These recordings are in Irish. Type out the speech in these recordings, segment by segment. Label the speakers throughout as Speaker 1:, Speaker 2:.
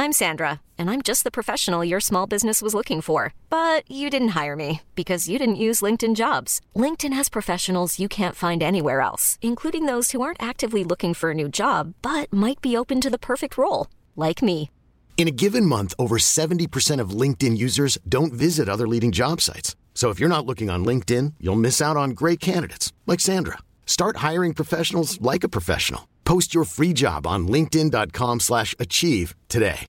Speaker 1: I'm Sandra, and I'm just the professional your small business was looking for. But you didn't hire me because you didn't use LinkedIn jobs. LinkedIn has professionals you can't find anywhere else, including those who aren't actively looking for a new job but might be open to the perfect role, like me.
Speaker 2: In a given month, over 70% of LinkedIn users don't visit other leading job sites. So if you're not looking on LinkedIn, you'll miss out on great candidates like Sandra. Start hiring professionals like a professional. Post your free job on linkedin.com/achieve slash achieve today.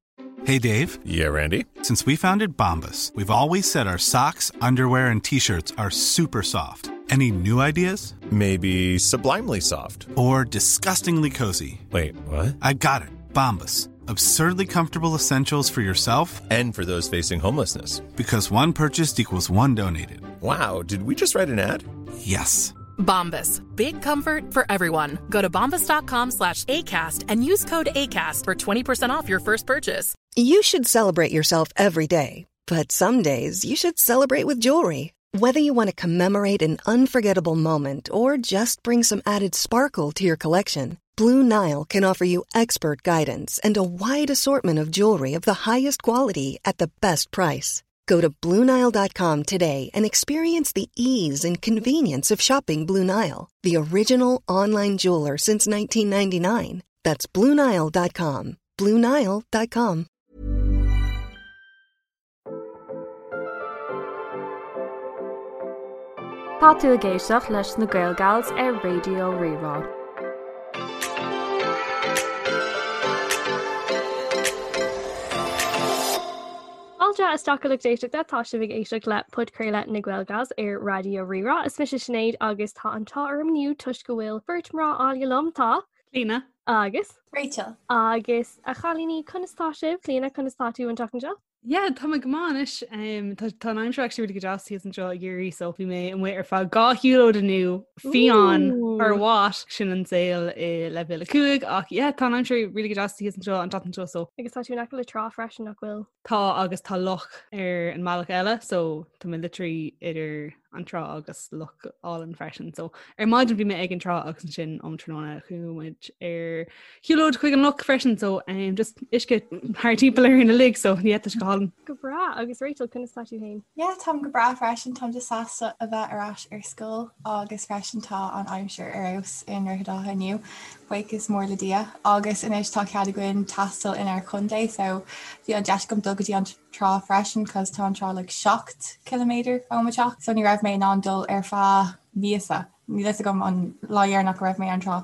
Speaker 3: Hey Dave.
Speaker 4: Yeah, Randy.
Speaker 3: Since we founded Bombus, we've always said our socks, underwear, and t-shirts are super soft. Any new ideas?
Speaker 4: Maybe sublimely soft.
Speaker 3: Or disgustingly cozy.
Speaker 4: Wait, what?
Speaker 3: I got it. Bombus. Absurdly comfortable essentials for yourself
Speaker 4: And for those facing homelessness.
Speaker 3: because one purchased equals one donated.
Speaker 4: Wow, did we just write an ad?
Speaker 3: Yes.
Speaker 5: Bombas. Big comfort for everyone. Go to bombas.com slash ACAST and use code ACAST for 20% off your first purchase.
Speaker 6: You should celebrate yourself every day, but some days you should celebrate with jewelry. Whether you want to commemorate an unforgettable moment or just bring some added sparkle to your collection, Blue Nile can offer you expert guidance and a wide assortment of jewelry of the highest quality at the best price. Go to BlueNile.com today and experience the ease and convenience of shopping Blue Nile, the original online jeweler since 1999. That's BlueNile.com. BlueNile.com.
Speaker 7: Tá tú ag éisteacht leis na Gael Gals ar Raidió Rí-Rá. Fáilte isteach a lucht éisteachta, tá sibh ag éisteacht le podchraoladh na Gael Gals ar Raidió Rí-Rá. Is mise Sinéad agus tá an t-ádh orm inniu toisc go bhfuil beirt mná áille liom, tá.
Speaker 8: Clíona.
Speaker 7: Agus.
Speaker 9: Rachel.
Speaker 7: Agus a chailíní, conas tá sibh? Clíona, conas tá tú an tseachtain seo?
Speaker 8: Yeah, tá mé go maith anois. Um, tá tá an aimsir actually really go deas thíos anseo i gCiarraí, so bhí mé amuigh ar feadh dhá shiúlóid inniu fiáin or what sin an saol i leibhéal 5 ach yeah, tá an aimsir really go deas thíos anseo an tseachtain seo so
Speaker 7: Agus tá tú in aice le trá freisin nach bhfuil?
Speaker 8: Tá agus tá loch ar an mbealach eile so tá mé literally idir an trá agus loch álainn freisin. So ar maidin bhí mé ag an trá agus ansin um tráthnóna chuaigh muid ar shiúlóid chuig an loch freisin so um, just uisce thar timpeall orainn uilig so yeah, tá sé go hálainn.
Speaker 7: Go breá agus Rachel conas tá tú féin?
Speaker 9: Yeah, táim go breá freisin, táim just sásta a bheith ar ais ar scoil agus freisin tá an aimsir ar fheabhas i nDroichead Átha inniu, buíochas mór le Dia. Agus anois tá cead againn taisteal inár chontae so bhí an deis agam dul go dtí an trá freisin cos tá an trá like 7 km ó mo teach so ní raibh mé in ann dul ar feadh míosa. Níl fhios agam an lá dheireanach go raibh mé ar an trá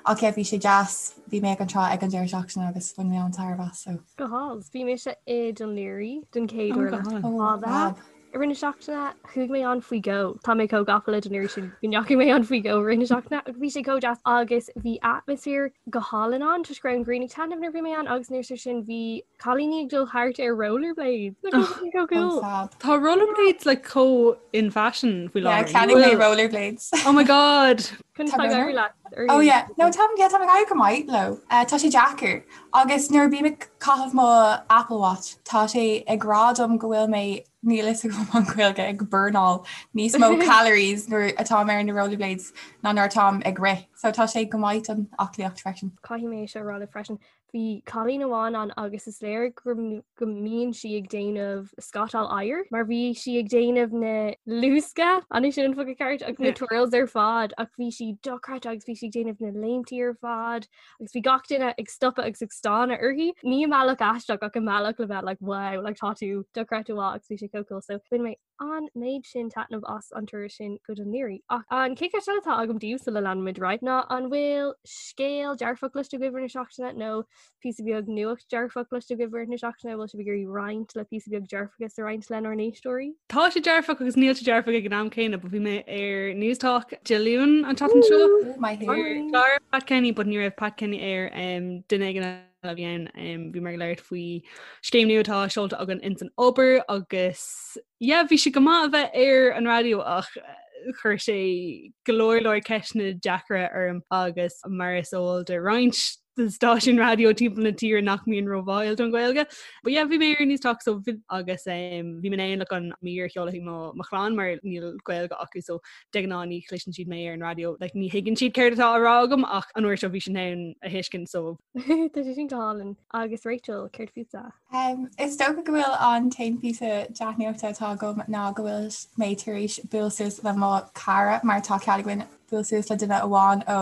Speaker 9: ach yeah bhí sé deas, bhí mé ag an trá ag an deireadh seachtaine agus bhain mé an-tairbhe as so.
Speaker 7: Go hálainn. Bhí mise i Dún Laoghaire den chéad uair le fada. I rith na seachtaine chuaigh mé ann faoi dhó. Tá mé chomh gafa le Dún Laoghaire sin go ndeachaigh mé ann faoi dhó i rith na seachtaine agus bhí sé chomh deas agus bhí atmaisféar go hálainn ann toisc go raibh an ghrian ag taitneamh nuair a bhí mé ann agus anuas air sin bhí cailíní ag dul thart ar rollerblades. Nach raibh sé chomh cool?
Speaker 8: Tá rollerblades like chomh in fashion faoi
Speaker 9: láthair. Yeah, ceannaigh mé rollerblades.
Speaker 8: Oh my god!
Speaker 7: Conas tá ag éirí leat?
Speaker 9: Oh yeah, no tá yeah, tá ag éirí go maith leo. Uh, tá sé deacair. Agus nuair a bím ag caitheamh mo Apple Watch, tá sé ag rá dom go bhfuil mé níl fhios agam an Ghaeilge ag burnáil níos mó calories nuair atáim ar na rollerblades ná nuair atáim ag rith. So tá sé go maith don aclaíocht freisin.
Speaker 7: Caithfidh mé seo a rá libh freisin. Bhí cailín amháin ann agus is léir go mbíonn sí ag déanamh scátáil oighir mar bhí sí ag déanamh na luasca an é sin an focal ceart agus na twirls ar fad ach bhí sí dochreidte agus bhí sí ag déanamh na léimtí ar fad agus bhí gach duine ag stopadh agus ag stánadh uirthi. Ní i mbealach aisteach ach i mbealach le bheith like wow like tá tú dochreidte mhaith agus bhí sé chomh cool so bhain mé an méid sin taitneamh as an turas sin go Dún Laoghaire. Ach an chéad cheist eile atá agam daoibh sula leanfaimid ar aghaidh ná an bhfuil scéal dearfach cloiste agaibh i rith na seachtaine nó píosa beag nuacht dearfach cloiste agaibh i rith na seachtaine, bhfuil sibh ag iarraidh roinnt le píosa beag dearfachas a roinnt lenár n-éisteoirí?
Speaker 8: Tá sé dearfach agus níl sé dearfach ag an am céanna, but bhí mé ar Newstalk Dé Luain an tseachtain seo.
Speaker 9: Maith
Speaker 8: thú. Clár Pat Kenny, but ní raibh Pat Kenny air um, duine éigin eile a bhí ann um, bhí muid ag labhairt faoi scéim nua atá seolta againn ins an obair agus yeah, bhí sé go maith a bheith ar an raidió ach eh, chuir sé go leor leor ceisteanna deacra orm agus mar is eol do roinnt. stáisiúin raidió timpeall na tíre nach mbíonn róbháúil don Ghaeilge. But yeah, bhí mé ar Newstalk so agus um, bhí mé in ann like, an mír a sheoladh chuig mo, mo chlann mar níl Gaeilge acu so de ghnáth ní chloiseann siad mé ar an raidió like, ní thuigeann siad céard atá á rá agam ach an uair seo bhí siad in ann a thuiscint so
Speaker 7: Tá sé sin go hálainn. Agus Rachel, céard fútsa?
Speaker 9: Um, is dócha go bhfuil an t-aon píosa dea-nuachta atá agam ná go bhfuil mé tar éis bualadh suas le mo chara mar tá cead againn bualadh suas le duine amháin ó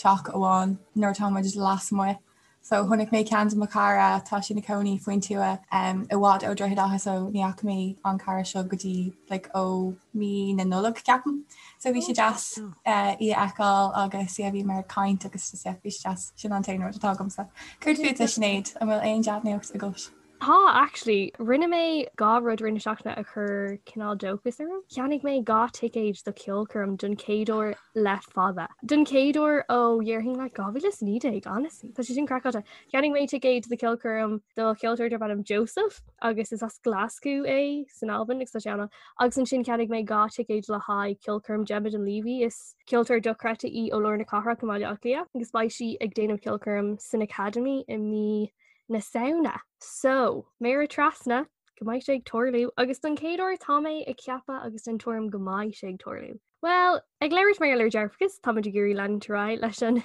Speaker 9: teach amháin nuair atá muid lasmuigh. So chonaic mé ceann de mo chara, tá sé ina cónaí faoin tuath um, i bhfad ó Droichead Átha so ní fhaca mé an cara seo go dtí like, ó mí na Nollag ceapaim. So bhí sé deas uh, í a fheiceáil agus yeah, bhíomar ag caint agus just, yeah, bhí sé deas sin an t-aon rud atá agamsa. Céard fútsa Sinéad, an bhfuil aon dea-nuacht agat?
Speaker 7: Tá, actually. Rinne mé 2 rud i rith na seachtaine a chuir cineál dóchas orm. Cheannaigh mé 2 ticéad do cheolchoirm don chéad uair le fada. Don chéad uair ó dhéarfainn like 2019, honestly. Tá sé sin craiceáilte. Cheannaigh mé ticéad do cheolchoirm do cheoltóir darb ainm Joseph agus is as Glasgow é san Albain agus tá sé ann. Agus ansin cheannaigh mé 2 ticéad le haghaidh ceolchoirm Gemma Dunleavy. Is ceoltóir dochreidte í ó lár na cathrach i mBaile Átha Cliath agus beidh sí ag déanamh ceolchoirm san Academy i mí na Samhna. So, méara trasna, go mbeidh sé ag tarlú, agus don chéad uair tá mé ag ceapadh agus den tuairim go mbeidh sé ag tarlú. Well, ag labhairt mar gheall ar dearfachas, táimid ag iarraidh leanúint ar aghaidh leis an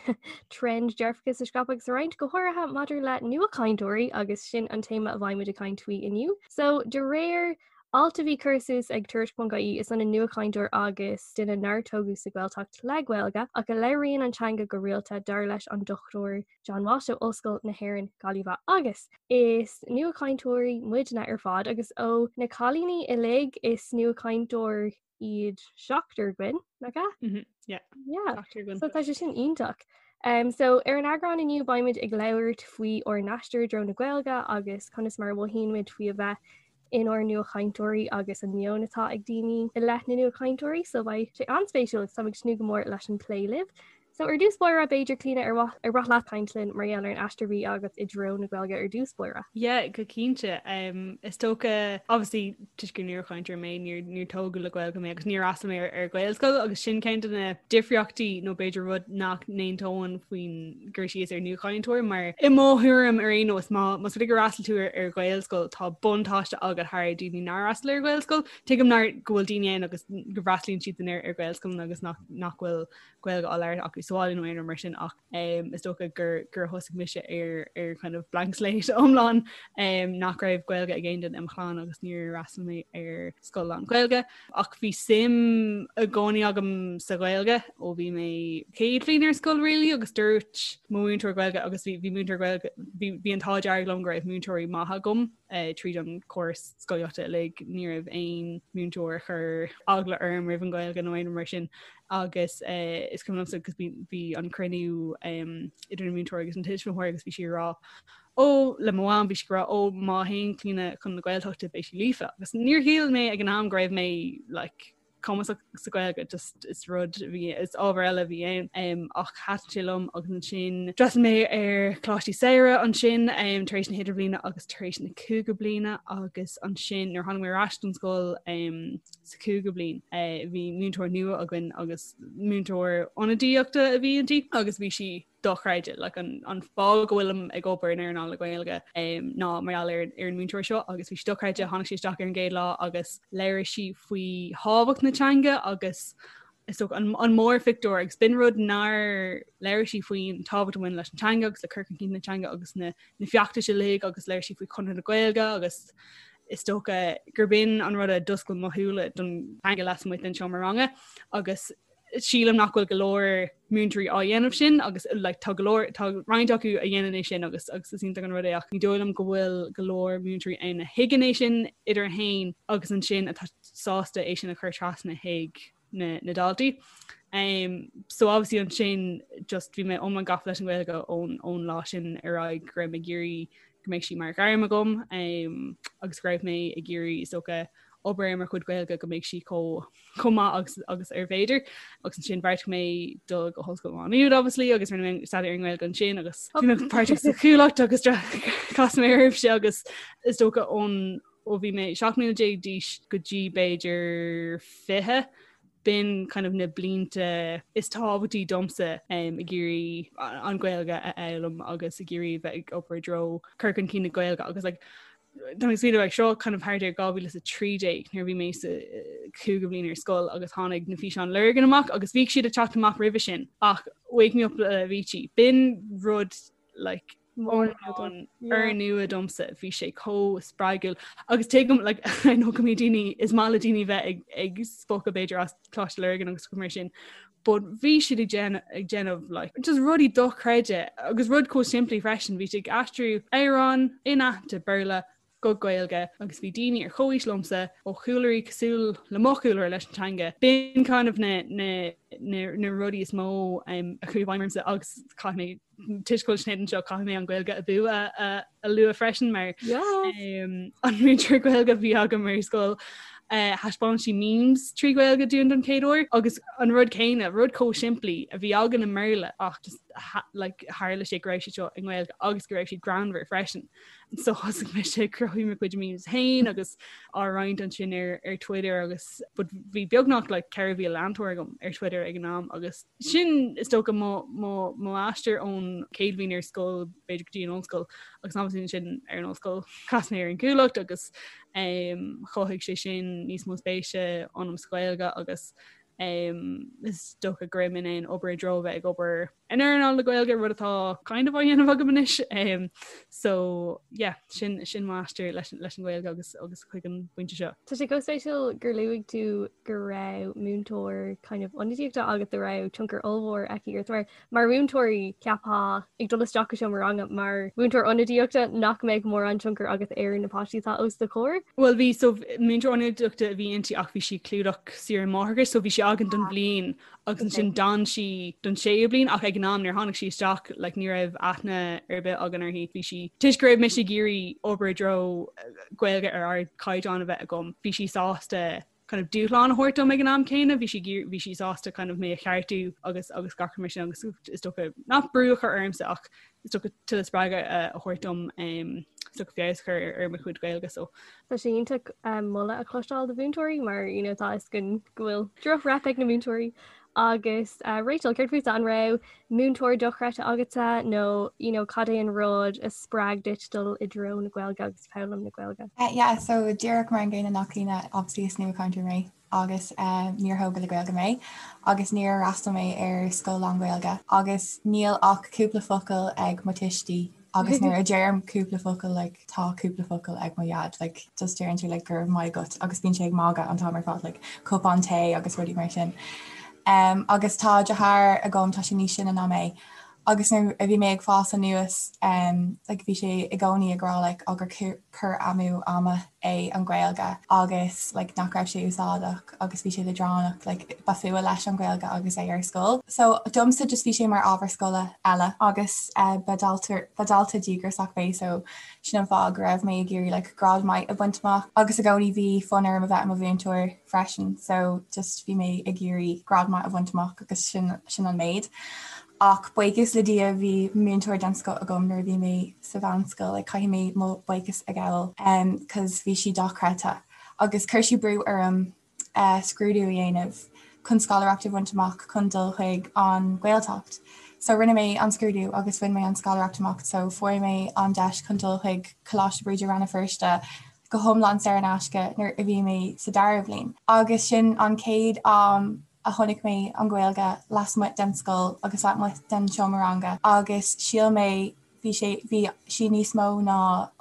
Speaker 7: trend dearfachas a scaipeadh agus a roinnt, go háirithe maidir le nuachainteoirí agus sin an téama a bheidh muid ag caint faoi inniu. So, de réir alt a bhí curtha suas ag Tuairisc.ie, is ionann nuachainteoir agus duine nár tógadh sa Ghaeltacht le Gaeilge ach a labhraíonn an teanga go rialta, dar leis an Dr. John Walsh ó Ollscoil na hÉireann, Gaillimh agus is nuachainteoirí muidne ar fad agus ó na cailíní uilig is nuachainteoir iad seachtar againn, nach ea?
Speaker 8: Mm -hmm. Yeah.
Speaker 7: Yeah. Seachtar againn. So tá sé sin iontach. Um, so ar an eagrán inniu beimid ag labhairt faoi ár n-aistear i dtreo na Gaeilge agus conas mar a mhothaíonn muid faoi a bheith inár nuachainteoirí agus an meon atá ag daoine i leith na nuachainteoirí, so beidh sé an-spéisiúil agus táim ag tnúth go mór leis an plé libh. So ar dtús báire, b'fhéidir Clíona ar mhaith ar mhaith leat caint linn mar gheall ar an aistear a bhí agat i dtreo na Gaeilge ar dtús báire?
Speaker 8: Yeah, go cinnte. Um, is dócha, obviously, toisc gur nuachainteoir mé, níor, níor tógadh le Gaeilge mé agus níor fhreastail mé ar, ar Ghaelscoil agus sin ceann de na difríochtaí nó b'fhéidir rud nach n-aontóinn faoin gcur síos ar nuachainteoir mar i mo thuairim ar aon nós má más rud é gur fhreastail tú ar, ar Ghaelscoil tá buntáiste agat thar daoine nár fhreastail ar Ghaelscoil. Tuigim nár go bhfuil daoine ann agus go bhfreastalaíonn siad ar, ar Ghaelscoil agus nach, nach bhfuil Gaeilge á labhairt acu sa bhaile nó aon rud mar sin ach um, is dócha gur gur thosaigh mise ar ar kind of blank slate iomlán um, nach raibh Gaeilge ag aon duine i mo chlann agus níor fhreastail mé ar scoil lán-Ghaeilge ach bhí suim i gcónaí agam sa Ghaeilge ó bhí mé céad bhliain ar scoil really agus dúirt mo mhúinteoir Gaeilge agus bhí bhí múinteoir Gaeilge bhí bhí an t-ádh dearg liom go raibh múinteoirí maithe agam uh, tríd an córas scolaíochta uilig ní raibh aon múinteoir a chuir eagla orm roimh an Ghaeilge nó aon rud mar sin agus uh, is cuimhin liomsa agus bhí an cruinniú um, idir an múinteoir agus an tuismitheoir agus bhí sí ag rá ó le mo mham bhí sí ag rá ó má théann Clíona chun na Gaeltachta beidh sí líofa agus níor shíl mé ag an am go raibh mé like, cumasach sa Ghaeilge just is rud bhí is ábhar eile bhí ann um, ach thaitin sé liom agus ansin d'fhreastail mé ar choláistí samhraidh ansin um, tar éis na hidirbhliana agus tar éis na cúigiú bliana agus ansin nuair tháinig mé ar ais don scoil um, sa cúigiú bliain. Bhí múinteoir nua againn agus múinteoir ionadaíochta a bhí inti agus bhí sí dochreidte like an, an fáth go bhfuilim ag obair in earnáil na Gaeilge um, ná mar gheall ar, ar an múinteoir seo agus bhí sí dochreidte tháinig sí isteach ar an gcéad lá agus labhair sí faoi thábhacht na teanga agus is dócha an, an mórphictiúr agus b'in rud nár labhair sí faoin tábhacht a bhain leis an teanga agus le cur chun cinn na teanga agus na, na feachtais uilig agus labhair sí faoi Chonradh na Gaeilge agus is dócha gurb in an rud a d'oscail mo shúile don teanga lasmuigh den seomra ranga agus sílim nach bhfuil go leor múinteoirí á dhéanamh sin agus like, tá go leor tá roinnt acu a dhéanann é sin agus agus is iontach an rud é ach ní dóigh liom go bhfuil go leor múinteoirí ann a thuigeann é sin idir a haon agus ansin atá sásta é sin a chur trasna chuig na, na daltaí. Um, so obviously ansin just bhí mé iomlán gafa leis an Ghaeilge ón, ón lá sin ar aghaidh go raibh mé ag iarraidh go mbeidh sí mar ghairm agam um, agus go raibh mé ag iarraidh is dócha obair ar mo chuid Gaeilge go mbeidh sí chomh chomh maith agus agus ar féidir agus ansin bheartaigh mé dul go hOllscoil Mhá Nuad obviously agus rinne mé staidéar ar an nGaeilge ansin agus bhí mé páirteach sa Chuallacht agus chas mé oraibhse agus is dócha ón ó bhí mé 17 mbliana d'aois go dtí b'fhéidir 20. B'in kind of na blianta is tábhachtaí domsa ag iarraidh an Ghaeilge a fhoghlaim agus ag iarraidh bheith ag obair i dtreo cur chun cinn na Gaeilge agus like, Tá mé ag smaoineamh like, seo kind of thart ar 2013 nuair a bhí mé sa cúigiú bliain ar scoil agus tháinig na físeáin Lurgan amach agus bhíodh siad ag teacht amach roimhe sin ach Wake Me Up le Avicii. B'in rud like úrnua domsa bhí sé chomh spreagúil agus tuigim like I know go mbíonn daoine is maith le daoine bheith ag ag spochadh b'fhéidir as Coláiste Lurgan agus mar sin but bhí siad ag déanamh ag déanamh like just rudaí dochreidte agus rud chomh simplí freisin bhí siad ag aistriú amhrán inaitheanta Béarla go Gaeilge agus bhí daoine ar chomhaois liomsa ó chúlraí cosúil le mo chúlra leis an teanga. B'in kind of na, na, na, na rudaí is mó um, a chuaigh i bhfeidhm ormsa agus caithfidh mé toisc go bhfuil Sinéad anseo caithfidh mé an Ghaeilge Abú a, a, a lua freisin mar um, an múinteoir Gaeilge a bhí agam ar scoil uh, thaispeáin sí memes trí Ghaeilge dúinn don chéad uair agus an rud céanna, rud chomh simplí a bhí againn i mBéarla ach just ha, like, tharla sé go raibh siad seo i nGaeilge agus go raibh siad greannmhar freisin. So thosaigh mise ag cruthú mo chuid memes féin agus á roinnt ansin ar ar Twitter agus but bhí beagnach like 4,000 leantóir agam ar Twitter ag an am agus sin is dócha mo mo mo aistear ón chéad bhliain ar scoil b'fhéidir go dtí an ollscoil agus obviously ansin ar an ollscoil chas mé ar an Chuallacht agus um, chothaigh sé sin níos mó spéise ionam sa Ghaeilge agus um, is dócha go raibh mé in ann obair i dtreo bheith ag obair in earnáil na Gaeilge rud atá kind of á dhéanamh agam anois um, so yeah sin sin m'aistear leis leis an Ghaeilge agus agus chuig an bpointe seo.
Speaker 7: Tá sé chomh spéisiúil gur luaigh tú go raibh múinteoir kind of ionadaíochta agat a raibh tionchar ollmhór aici ort mar mar mhúinteoirí cheapfá ag dul isteach go seomra ranga mar mhúinteoir ionadaíochta nach mbeadh mórán tionchar agat ar na páistí atá os do chomhair.
Speaker 8: Well bhí so múinteoir ionadaíochta a bhí inti ach bhí sí ag clúdach saoire máithreachais so bhí sí againn don bhliain agus ansin d'fhan sí don séú bliain ach ag an am nuair tháinig sí isteach like, ní raibh aithne ar bith againn uirthi bhí sí toisc go raibh mise ag iarraidh obair i dtreo Gaeilge ar ardchaighdeán a bheith agam bhí sí sásta kind of dúshlán a thabhairt dom ag an am céanna bhí sí bhí sí sásta kind of mé a cheartú agus agus gach mar sin agus is dócha nach brú a chur ormsa ach is dócha tuilleadh spreagadh a thabhairt dom is dócha feabhas a chur ar mo chuid Gaeilge so.
Speaker 7: Tá sé iontach moladh a chloisteáil do mhúinteoirí mar you know, tá a fhios againn go bhfuil droch-rep ag na múinteoirí agus uh, Rachel, céard fútsa an raibh múinteoir dochreidte agatsa nó you know, cad é an rud a spreag duit dul i dtreo na Gaeilge agus foghlaim na Gaeilge?
Speaker 9: Uh, yeah, so díreach mar an gcéanna le Clíona obviously is nuachainteoir mé agus níor thógadh le Gaeilge mé agus níor fhreastail mé ar scoil lán-Ghaeilge agus níl ach cúpla focal ag mo tuistí agus nuair a deirim cúpla focal like tá cúpla focal ag mo dhaid like just deireann sé like go raibh maith agat agus bíonn sé ag magadh an t-am ar fad like cupán tae agus rudaí mar sin. Um, agus tá deartháir agam tá sé níos sine ná mé Agus nuair a bhí mé ag fás anuas like bhí sé i gcónaí ag rá like á gur cur amú ama é an Ghaeilge agus like nach raibh sé úsáideach agus bhí sé leadránach like ba fuath leis an Ghaeilge agus é ar scoil. So domsa just bhí sé mar ábhar scoile eile agus eh, ba dalta ba dalta díograiseach mé so sin an fáth go raibh mé ag iarraidh like grád maith a bhaint amach agus i gcónaí bhí fonn orm a bheith i mo mhúinteoir freisin so just bhí mé ag iarraidh grád maith a bhaint amach agus sin sin an méid. Ach buíochas le Dia bhí múinteoir den scoth agam nuair a bhí mé sa mheánscoil, like caithfidh mé mo buíochas a ghabháil um, cos bhí sí dochreidte. Agus chuir sí brú orm uh, scrúdú a dhéanamh chun scoláireacht a bhaint amach chun dul chuig an Ghaeltacht. So rinne mé an scrúdú agus bhain mé an scoláireacht amach, so fuair mé an deis chun dul chuig Coláiste Bríde Rann na Feirste go hiomlán saor in aisce nuair a bhí mé sa dara bhliain. Agus sin an chéad am a chonaic mé an Ghaeilge lasmuigh den scoil agus lasmuigh den seomra ranga agus shíl mé bhí sé bhí sí níos mó ná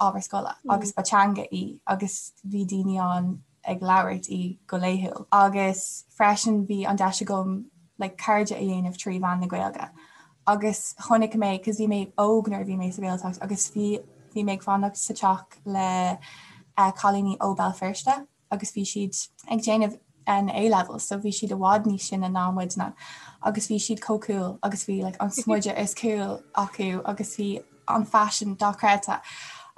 Speaker 9: ábhar scoile agus ba teanga í agus bhí daoine ann ag labhairt í go laethúil. Agus freisin bhí an deis agam like cairde a dhéanamh trí mheán na Gaeilge. Agus chonaic mé cos bhí mé óg nuair a bhí mé sa Ghaeltacht agus bhí bhí mé ag fanacht sa teach le eh, cailíní ó Béal Feirste agus bhí siad ag déanamh an A-levels so bhí siad i bhfad níos sine ná muidne agus bhí siad chomh cool agus bhí like an smideadh is cool acu agus bhí an faisean dochreidte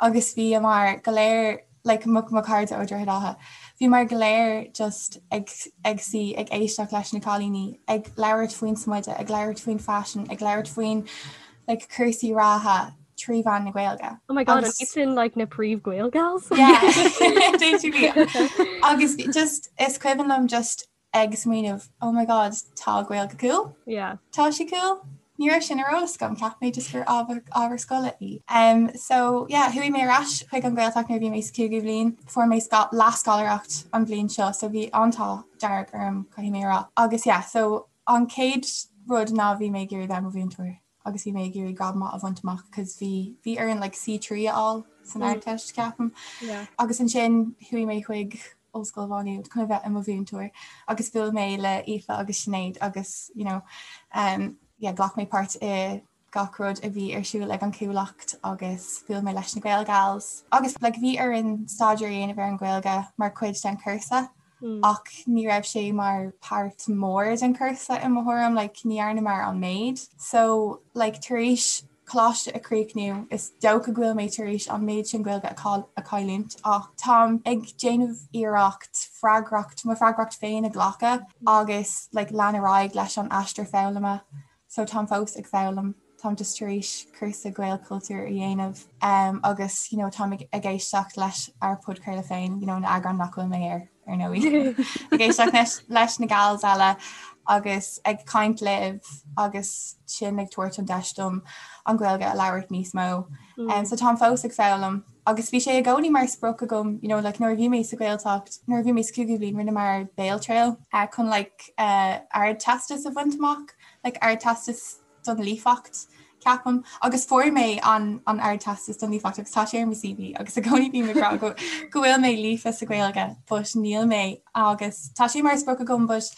Speaker 9: agus bhíomar go léir like mo mo chairde ó Droichead Átha bhíomar go léir just ag ag suí ag éisteacht leis na cailíní ag labhairt faoin smideadh ag labhairt faoin faisean ag labhairt faoin like cúrsaí reatha trí mheán na Gaeilge.
Speaker 7: Oh my god, an iad sin like na príomh Gael gals?
Speaker 9: Yeah. Agus just is cuimhin liom just ag smaoineamh oh my god tá Gaeilge cool?
Speaker 7: Yeah.
Speaker 9: Tá sí cool? Ní raibh sin ar eolas agam, cheap mé just gur ábhar ábhar scoile í. Um, so yeah, chuaigh mé ar ais chuig an Ghaeltacht nuair a bhí mé sa cúigiú bhliain, fuair mé leathscoláireacht an bhliain seo, so bhí an t-ádh dearg orm caithfidh mé a rá. Agus yeah, so an chéad rud ná bhí mé ag iarraidh bheith i mo mhúinteoir agus bhí mé ag iarraidh grád maith a bhaint amach cos bhí bhí orainn like C3 a fháil san Ardteist ceapaim.
Speaker 7: Yeah.
Speaker 9: Agus ansin chuaigh mé chuig Ollscoil Mhá Nuad chun a bheith i mo mhúinteoir agus bhuail mé le Aoife agus Sinéad agus you know um, yeah, ghlac mé páirt i gach rud a bhí ar siúl ag an Chuallacht agus bhuail mé leis na Gaelgals agus like, bhí orainn staidéar a dhéanamh ar an Ghaeilge mar chuid den chúrsa mm. ach ní raibh sé mar páirt mór den chúrsa i mo thuairim like, ní dhearnamar an méid. So like, tar éis coláiste a chríochnú, is dócha go bhfuil mé tar éis an méid sin Gaeilge a chailliúint ach táim ag déanamh iarracht freagracht, mo freagracht féin a ghlacadh agus like lean ar aghaidh leis an aistear foghlama. So táim fós ag foghlaim, táim just tar éis cúrsa Gaelchultúr a dhéanamh um, agus you know, táim ag, ag éisteacht leis ár podchraoladh féin, you know, na eagráin nach bhfuil mé air. ar ndóigh. Ag éisteacht leis na gals eile agus ag caint libh agus sin ag tabhairt an deis dom an Ghaeilge a labhairt níos mó. Mm. Um, so táim fós ag foghlaim agus bhí sé i gcónaí mar sprioc agam you know, like, nuair a bhí mé sa Ghaeltacht, nuair a bhí mé sa cúigiú bliain rinneamar Béaltriail uh, chun like, uh, ardteastas a bhaint amach, like, ardteastas don líofacht, ceapaim, agus fuair mé an an Ardteastas don líofacht agus tá sé ar mo CV agus i gcónaí bím ag rá go go bhfuil mé líofa sa Ghaeilge but níl mé agus tá sé mar sprioc agam but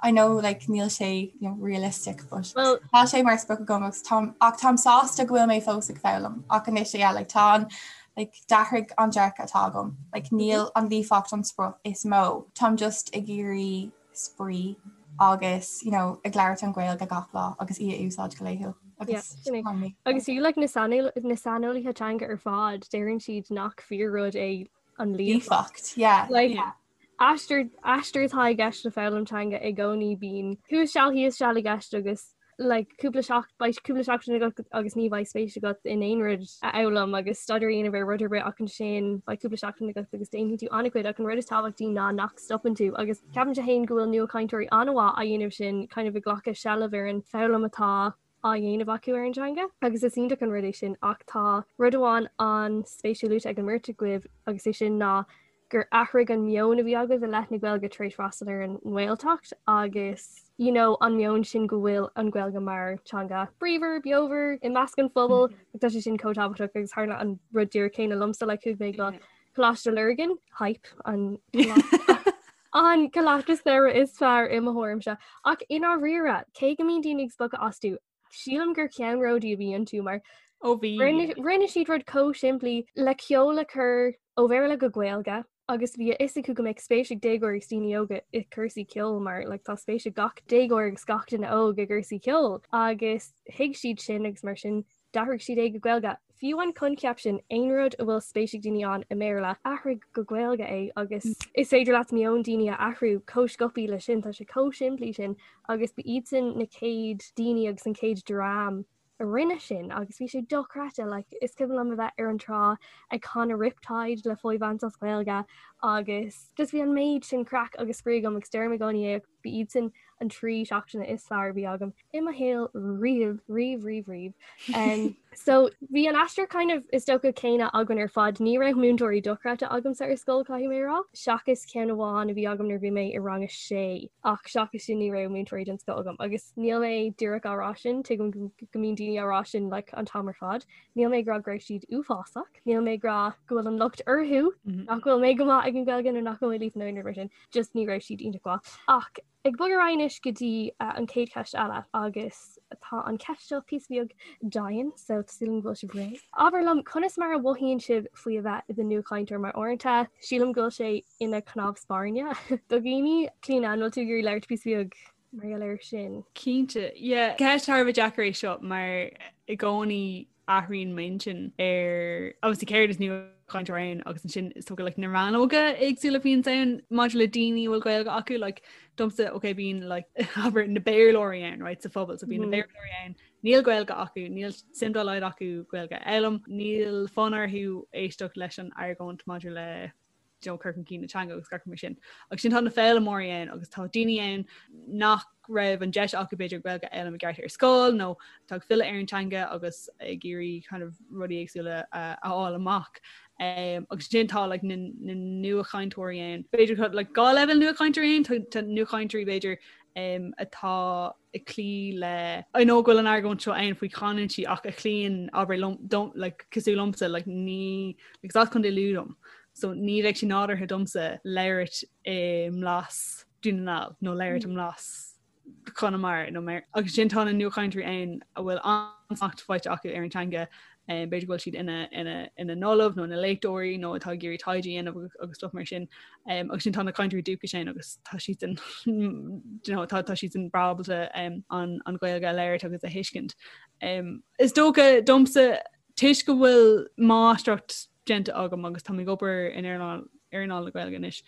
Speaker 9: I know like níl sé you know, realistic but well, tá sé mar sprioc agam agus táim ach táim sásta go bhfuil mé fós ag foghlaim ach anois yeah, like, tá an like, d'athraigh an dearcadh atá agam like, níl an líofacht an sprioc is mó táim just ag iarraidh spraoi agus you know, ag labhairt an Ghaeilge gach lá agus í a úsáid go laethúil.
Speaker 7: Agus agus fiú like, na saineolaithe teanga ar fad deireann siad nach fíor-rud é an
Speaker 9: líofacht. Yeah.
Speaker 7: Like, yeah. Aistear aistear atá i gceist le foghlaim teanga i gcónaí bíonn thuas seal thíos seal i gceist agus like cúpla seach beidh cúpla seachtain agat agus ní bheidh spéis agat in aon rud a fhoghlaim agus staidéar a dhéanamh ar rud ar bith ach ansin beidh cúpla seachtain agat agus déanfaidh tú an-chuid ach an rud is tábhachtaí ná nach stopann tú agus ceapaimse féin go bhfuil nuachainteoirí an-mhaith á dhéanamh sin kind of ag glacadh seilbh ar an foghlaim atá á dhéanamh acu ar an teanga agus is iontach an rud é sin ach tá rud amháin an-spéisiúil luaite ag an mbeirt agaibh agus é sin ná gur athraigh an meon a bhí agaibh i leith na Gaeilge tar éis freastal ar an nGaeltacht agus you know, an meon sin go bhfuil an Ghaeilge mar teanga bríomhar, beomhar i measc an phobail mm -hmm. tá sé sin chomh tábhachtach agus tharla an rud díreach céanna liomsa le chuaigh mé go Coláiste Lurgan hype an an coláiste samhraidh is fearr i mo thuairimse ach i ndáiríre cé go mbíonn daoine ag spochadh astu Sílim gur ceannródaí a bhí iontu mar
Speaker 8: Ó bhí.
Speaker 7: Rinne siad rud chomh simplí le ceol a chur ó Bhéarla go Gaeilge agus bhí a fhios acu go mbeadh spéis ag déagóirí agus daoine óga i gcúrsaí ceoil mar like, tá spéis ag gach déagóir agus gach duine óg i gcúrsaí ceoil agus thuig siad sin agus mar sin d'athraigh siad é go Gaeilge. Fiú an coincheap sin, aon rud a bhfuil spéis ag daoine ann i mBéarla, athraigh go Gaeilge é agus is féidir leat meon daoine a athrú chomh sciobtha leis sin, tá sé chomh simplí sin agus ba iadsan na chéad daoine agus an chéad dream a rinne sin agus bhí sé dochreidte, like, is cuimhin liom a bheith ar an trá ag canadh Riptide le Foy Vance as Gaeilge agus just bhí an méid sin craic agus spraoi agam agus deirim i gcónaí é ba iad sin an 3 seachtaine is fearr a bhí agam i mo shaol riamh, riamh, riamh, riamh. Um, so bhí an aistear kind of is dócha céanna againn ar fad, ní raibh múinteoirí dochreidte agamsa ar scoil caithfidh mé a rá, seachas ceann amháin a bhí agam nuair a bhí mé i rang a sé ach seachas sin ní raibh múinteoirí den scoth agam agus níl mé díreach á rá sin, tuigim go mbíonn daoine á rá sin like, an t-am ar fad. Níl mé ag rá go raibh siad uafásach, níl mé ag rá go bhfuil an locht orthu mm -hmm. nach bhfuil mé go maith ag an Ghaeilge nó nach bhfuil mé líofa nó aon rud mar sin. just ní raibh siad iontach mhaith. Ach ag bogadh ar aghaidh anois go dtí an chéad cheist eile agus tá an cheist seo píosa beag dian so tá súil agam go bhfuil sibh réidh. Abair liom conas mar a mhothaíonn sibh faoi a bheith i do nuachainteoir mar uaireanta sílim go bhfuil sé ina chnámh spairne do dhaoine. Clíona, an bhfuil tú ag iarraidh labhairt píosa beag mar gheall air sin?
Speaker 8: Cinnte, yeah. Ceist thar a bheith deacair é seo mar i gcónaí athraíonn m'intinn ar obviously céard is nuachainteoir ann agus ansin is dócha like na rannóga éagsúla a bhíonns ann maidir le daoine a bhfuil Gaeilge acu like domsa ok bíonn like abair na Béarlóirí ann right sa phobal so bíonn na mm. Béarlóirí ann níl Gaeilge acu níl suim dá laghad acu Gaeilge a fhoghlaim níl fonn orthu éisteacht leis an argóint maidir le. you know, cur chun cinn na teanga agus gach mar sin. Agus ansin tá na foghlaimeoirí ann agus tá daoine ann nach raibh an deis acu b'fhéidir Gaeilge a fhoghlaim i gceart ar scoil nó atá ag filleadh ar an teanga agus ag iarraidh kind of rudaí éagsúla a fháil amach. Um, agus ansin tá like, na, na nuachainteoirí ann. B'fhéidir tá like, gá leibhéal nuachainteoirí ann, tá nuachainteoirí b'fhéidir um, atá ag cloí le I know go bhfuil an argóint seo ann faoi chanúintí ach a chloíonn abair liom don't like cosúil liomsa like ní like is as Contae Lú dom so ní bheadh sé nádúrtha domsa labhairt i mblas Dún na nGall nó labhairt i mblas Chonamara nó mar agus ansin tá na nuachainteoirí ann a bhfuil an-smacht faighte acu ar an teanga b'fhéidir go bhfuil siad ina ina ina n-ollamh nó ina léachtóirí nó atá ag iarraidh taighde a dhéanamh agus, agus stuff mar sin. Um, agus ansin tá na cainteoirí dúchais ann agus tá siad sin you know, tá, tá siad sin breá ábalta um, an, an Ghaeilge a labhairt agus a thuiscint. Um, is dócha domsa toisc go bhfuil máistreacht déanta agam agus tá mé ag obair in earnáil earnáil na Gaeilge anois.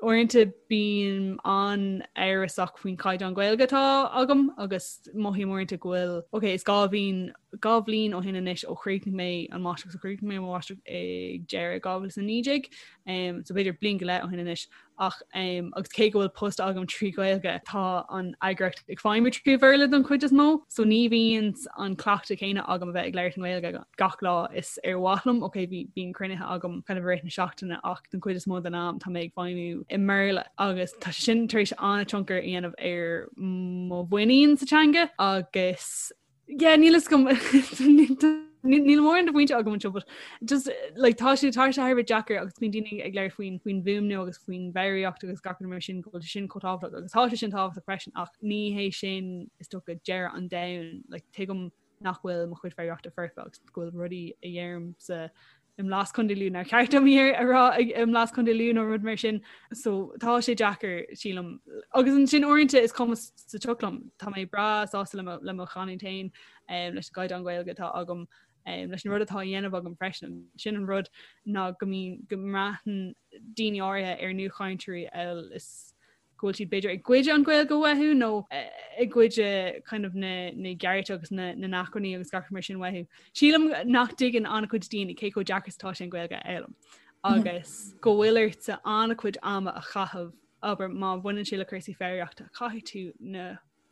Speaker 8: Uaireanta bím an-amhrasach faoin chaighdeán Gaeilge atá agam agus mothaím uaireanta go bhfuil ok is 2 bhliain 2 bhliain ó shin anois ó chríochnaigh mé an máistreacht so chríochnaigh mé an máistreacht ag deireadh 2019 um, so b'fhéidir bliain go leith ó shin anois ach um, agus cé go bhfuil post agam trí Ghaeilge tá an eagraíocht ag feidhmiú trí Bhéarla don chuid is mó, so ní bhíonn an cleachtadh céanna agam a bheith ag labhairt i nGaeilge gach lá is ar mhaith liom. Ok bhí bíonn cruinnithe agam kind of i rith na seachtaine ach don chuid is mó den am tá mé ag feidhmiú i mBéarla agus tá sé sin tar éis an-tionchar a dhéanamh ar mo mhuinín sa teanga agus Yeah, níl a fhios agam níl mórán de phointe agam anseo, but just like tá sé tá sé thar a bheith deacair agus bíonn daoine ag labhairt faoin faoin bhfuaimniú agus faoin bhfoghraíocht agus gach rud mar sin go bhfuil sé sin chomh tábhachtach agus tá sé sin tábhachtach freisin ach ní hé sin is dócha deireadh an domhain like tuigim nach bhfuil mo chuid foghraíochta foirfe agus go bhfuil rudaí a dheirimse i mblas Contae Lú nár cheart dom iad a rá i mblas Contae Lú nó rud mar sin. So tá sé deacair sílim. Agus ansin uaireanta is cuma sa tsioc liom. Tá mé breá sásta le le mo chanúint féin um, leis an gcaighdeán Gaeilge atá agam um, leis an rud atá á dhéanamh agam freisin. Sin an rud ná go mbíonn go mbraitheann daoine áirithe ar nuachainteoirí amhail is go bhfuil siad b'fhéidir ag goid an Ghaeilge uathu nó ag goid kind of na na gcearta agus na na n-acmhainní agus gach mar sin uathu. Sílim nach dtuigeann an-chuid daoine cé chomh deacair is atá sé an Ghaeilge a fhoghlaim agus go bhfuil ort an-chuid ama a chaitheamh abair má bhaineann sé le cúrsaí foghraíochta caithfidh tú na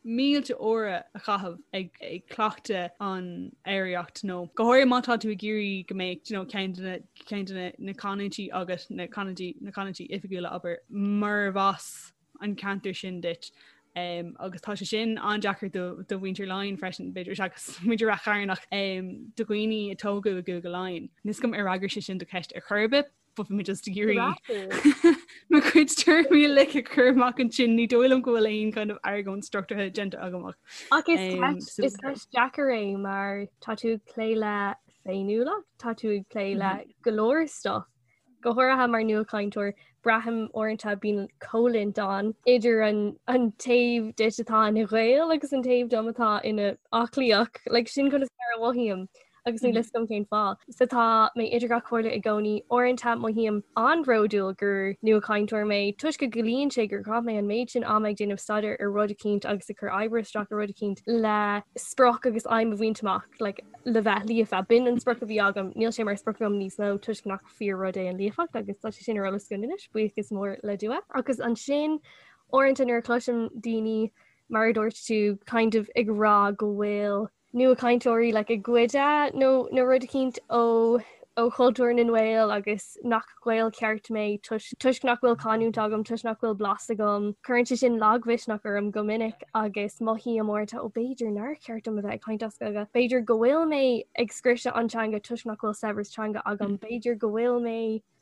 Speaker 8: mílte uaire a chaitheamh ag ag cleachtadh an fhoghraíocht nó go háirithe má tá tú ag iarraidh go mbeadh you know, ceann de na ceann de na na canúintí agus na canúintí na canúintí oifigiúla abair murab as an ceantar sin duit. Um, agus tá sé sin an-deacair do, do mhuintir Laighean freisin b'fhéidir seachas muintir Rath Chairn ach um, do dhaoine a tógadh i gCúige Laighean. Níl a fhios agam ar fhreagair sé sin do cheist ar chor ar bith, But bhí mé just ag iarraidh mo chuid tuairimí uilig a chur amach ansin ní dóigh liom go bhfuil aon kind of argóint struchtúrtha déanta agam
Speaker 7: ach. Ach is ceist is ceist deacair é mar tá tú ag plé le féiniúlacht, tá tú ag plé le go leor stuff. Go háirithe mar nuachainteoir, braithim uaireanta bíonn coimhlint ann idir an an taobh díot atá ina Ghael agus an taobh dom atá ina aclaíoch, like sin conas mar a mhothaím. agus níl a fhios agam cén fáth. So tá mé idir dhá chomhairle i gcónaí. Uaireanta mothaím an-bhródúil gur nuachainteoir mé toisc go gciallaíonn sé gur chaith mé an méid sin ama ag déanamh staidéir ar rud eicínt agus ag cur oibre isteach ar rud eicínt le sprioc agus aidhm a bhaint amach like, le bheith líofa. B'in an sprioc a bhí agam, níl sé mar sprioc agam níos mó toisc nach fíor-rud é an líofacht agus tá sé sin ar eolas againn anois, buíochas mór le Dua. Agus ansin uaireanta nuair a chloisim daoine mar a dúirt tú kind of ag rá go bhfuil nuachainteoirí like ag goid nó nó rud eicínt ó ó chultúr na nGael agus nach Gael ceart mé toisc nach bhfuil canúint agam, toisc nach bhfuil blas agam. Cuireann sé sin lagmhisneach orm go minic agus mothaím uaireanta ó b'fhéidir nár cheart dom a bheith ag caint as Gaeilge. B'fhéidir go bhfuil mé ag scriosadh an teanga toisc nach bhfuil saibhreas teanga agam. B'fhéidir go bhfuil mé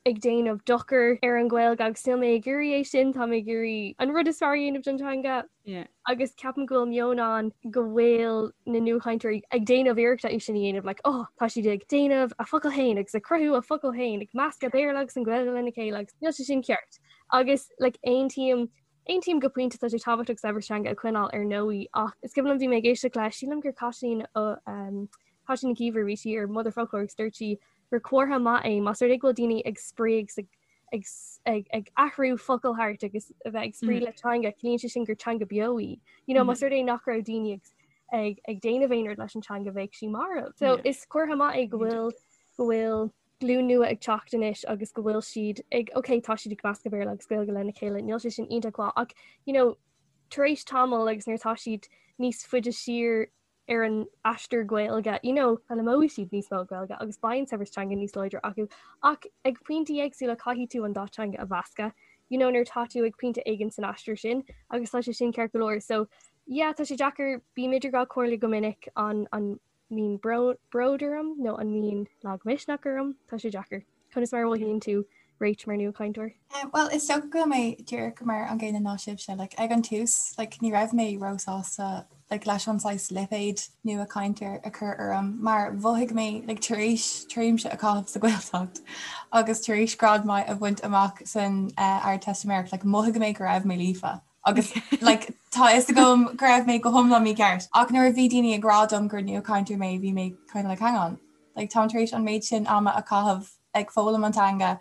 Speaker 7: ag déanamh dochar ar an Ghaeilge agus níl mé ag iarraidh é sin, tá mé ag iarraidh an rud is fearr a dhéanamh don teanga.
Speaker 8: Yeah.
Speaker 7: Agus ceapaim go bhfuil meon ann go bhfuil na nuachainteoirí ag déanamh iarrachta é sin a dhéanamh, like, oh, tá siad ag déanamh a focal féin agus ag cruthú a focal féin, ag meascadh Béarla agus an Ghaeilge lena chéile agus níl sé sin ceart. Agus like, aontaím Aontaím go pointe tá sé tábhachtach saibhreas teanga a choinneáil ar ndóigh ach is cuimhin liom bhí mé ag éisteacht le sílim gur Caitlín ó um, Caitlín Nic Íomhair bhí sí ar Motherfoclóir agus dúirt sí gur comhartha maith é más rud é go bhfuil daoine ag spraoi agus ag ag ag ag athrú focal thart agus a bheith ag spraoi le teanga, ciallaíonn sé sin gur teanga beo í. You know, más rud é nach raibh daoine ag ag ag déanamh aon rud leis an teanga bheadh sí marbh. So is comhartha maith é go bhfuil go bhfuil. glúin nua ag teacht anois agus go bhfuil siad ag ok tá siad ag meascadh Béarla agus Gaeilge lena chéile níl sé sin iontach mhaith ach you know tar éis tamall agus nuair atá siad níos faide siar ar an aistear Gaeilge you know foghlaimeoidh siad níos mó Gaeilge agus beidh an saibhreas teanga níos láidre acu ach ag pointí éagsúla caithfidh tú an dá teanga a mheascadh you know nuair atá tú ag pointe éigin san aistear sin agus tá sé sin ceart go leor so yeah tá sé deacair bím idir dhá chomhairle go minic an an mbíonn bród orm nó an mbíonn lagmhisneach orm, tá sé deacair. Conas mar a mhothaíonn tú Rach mar nuachainteoir?
Speaker 9: Bhuel, is dócha go bhfuil mé díreach mar an gcéanna ná sibhse. Like, ag an tús, like, ní raibh mé róshásta like, leis an saghas lipéad nuachainteoir a chur orm mar mhothaigh mé like, tar éis tréimhse a chaitheamh sa Ghaeltacht agus tar éis grád maith a bhaint amach san uh, Ardteistiméireacht, like, mhothaigh mé go raibh mé líofa. Agus like, tá fhios agam go raibh mé go hiomlán mícheart. Ach nuair a bhí daoine ag rá dom gur nuachainteoir mé, bhí mé kind of like, hang on. Like, táim tar éis an méid sin ama a chaitheamh ag foghlaim an teanga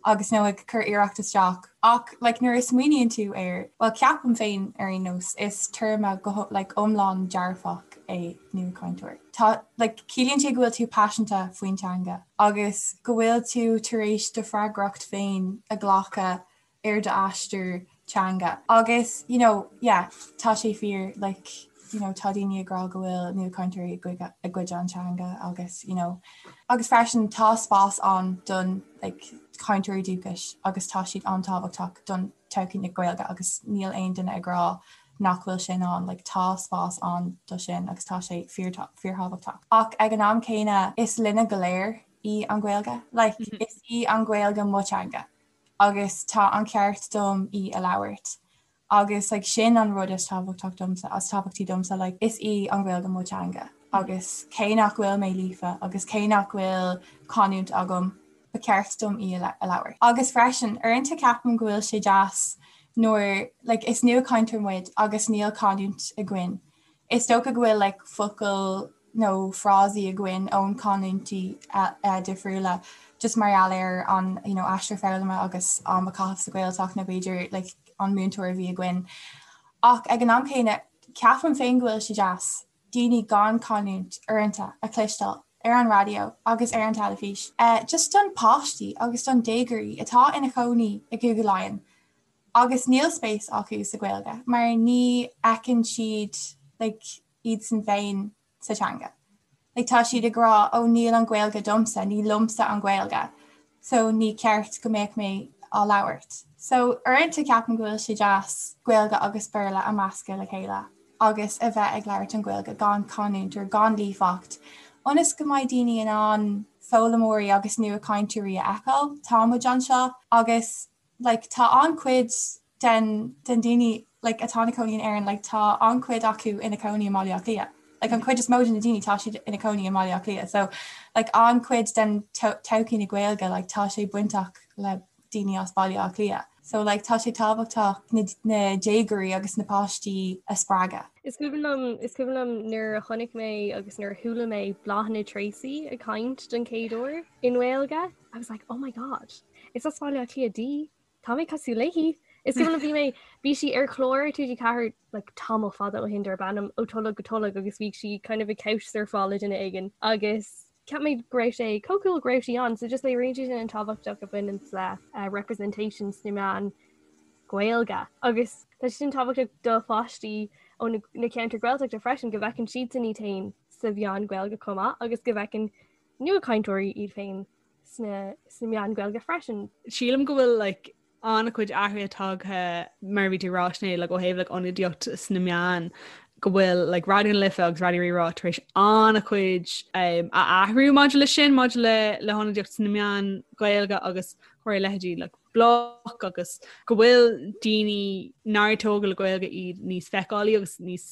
Speaker 9: agus nó ag cur iarracht isteach. Ach like, nuair a smaoiníonn tú air, well ceapaim féin ar aon nós, is téarma go like, iomlán dearfach é nuachainteoir. Tá like, ciallaíonn sé go bhfuil tú paiseanta faoin teanga agus go bhfuil tú tar éis do freagracht féin a ghlacadh ar d'aistear teanga. Agus you know yeah tá sé fíor like you know tá daoine ag rá go bhfuil nuachainteoirí ag goid an teanga agus you know agus freisin tá spás ann don like cainteoirí dúchais agus tá siad an-tábhachtach don todhchaí na Gaeilge agus níl aon duine ag rá nach bhfuil sin ann like tá spás ann do sin agus tá sé fíorthábhachtach. Ach ag an am céanna is linne go léir í an Ghaeilge like is í an Ghaeilge mo teanga. agus tá an ceart dom í a labhairt agus like sin an rud is tábhachtach domsa is tábhachtaí domsa like is í an Ghaeilge mo teanga agus cé nach bhfuil mé líofa agus cé nach bhfuil canúint agam ba cheart dom í a labhairt. Agus freisin uaireanta ceapaim go bhfuil sé deas nuair like is nuachainteoir muid agus níl canúint againn. Is dócha go bhfuil like focail nó frásaí againn ón canúintí difriúla just mar gheall ar an you know aistear foghlama agus am a caitheamh sa Ghaeltacht nó b'fhéidir like an múinteoir a bhí againn. Ach ag an am céanna ceapaim féin go bhfuil sé deas daoine gan canúint uaireanta a chloisteáil ar an raidió agus ar an teilifís just don páistí agus don déagóirí atá ina chónaí i gCúige Laighean agus níl spéis acu sa Ghaeilge mar ní fheiceann siad like iadsan féin sa teanga. Like tá siad ag rá ó níl an Ghaeilge domsa, ní liomsa an Ghaeilge so ní ceart go mbeadh mé á labhairt. So uaireanta ceapaim go bhfuil sé deas Gaeilge agus Béarla a meascadh le chéile agus a bheith ag labhairt an Ghaeilge gan canúint or gan líofacht ionas go mbeidh daoine in ann foghlaimeoirí agus nuachainteoirí a fheiceáil. Tá muid anseo agus like tá an-chuid den den daoine like atá ina cónaí in Éirinn like tá an-chuid acu ina cónaí i mBaile Átha Cliath. Like an chuid is mó de na daoine tá siad ina cónaí i mBaile Átha Cliath. So like an-chuid den todhchaí na Gaeilge like tá sé bainteach le daoine as Baile Átha Cliath. So like tá sé tábhachtach na na déagóirí agus na páistí a spreagadh.
Speaker 7: Is cuimhin liom is cuimhin liom nuair a chonaic mé agus nuair a chuala mé Bláthnaid Treacy ag caint don chéad uair i nGaeilge. I was like, oh my god, is as Baile Átha Cliath di, tá mé cosúil léi. Is cuimhin liom bhí mé bhí sí ar chlár TG4 like, tamall fada ó shin darb ainm Ó Tholg go Tolg agus bhí sí kind of ag couch surfáil le duine éigin agus cheap mé go raibh sé chomh cool go raibh sí ann, so just léiríonn sé sin an tábhacht a bhaineann le uh, representation sna meáin Gaeilge. Agus tá sé sin tábhachtach do pháistí ó na, na ceantair Gaeltachta freisin go bhfeiceann siadsan iad féin sa mheán Gaeilge chomh maith agus go bhfeiceann nuachainteoirí iad féin sna sna meáin Gaeilge freisin.
Speaker 8: Sílim go bhfuil like, an-chuid athruithe tagtha mar a bhí tú ag rá Sinéad like, ó thaobh like, ionadaíocht sna meáin go bhfuil like, Raidió na Life agus Raidió Rí-Rá tar éis an-chuid um, a athrú maidir le sin maidir le le hionadaíocht sna meáin Ghaeilge agus chuir leithéidí like, Bloc agus go bhfuil daoine nár tógadh le Gaeilge iad níos feiceálaí agus níos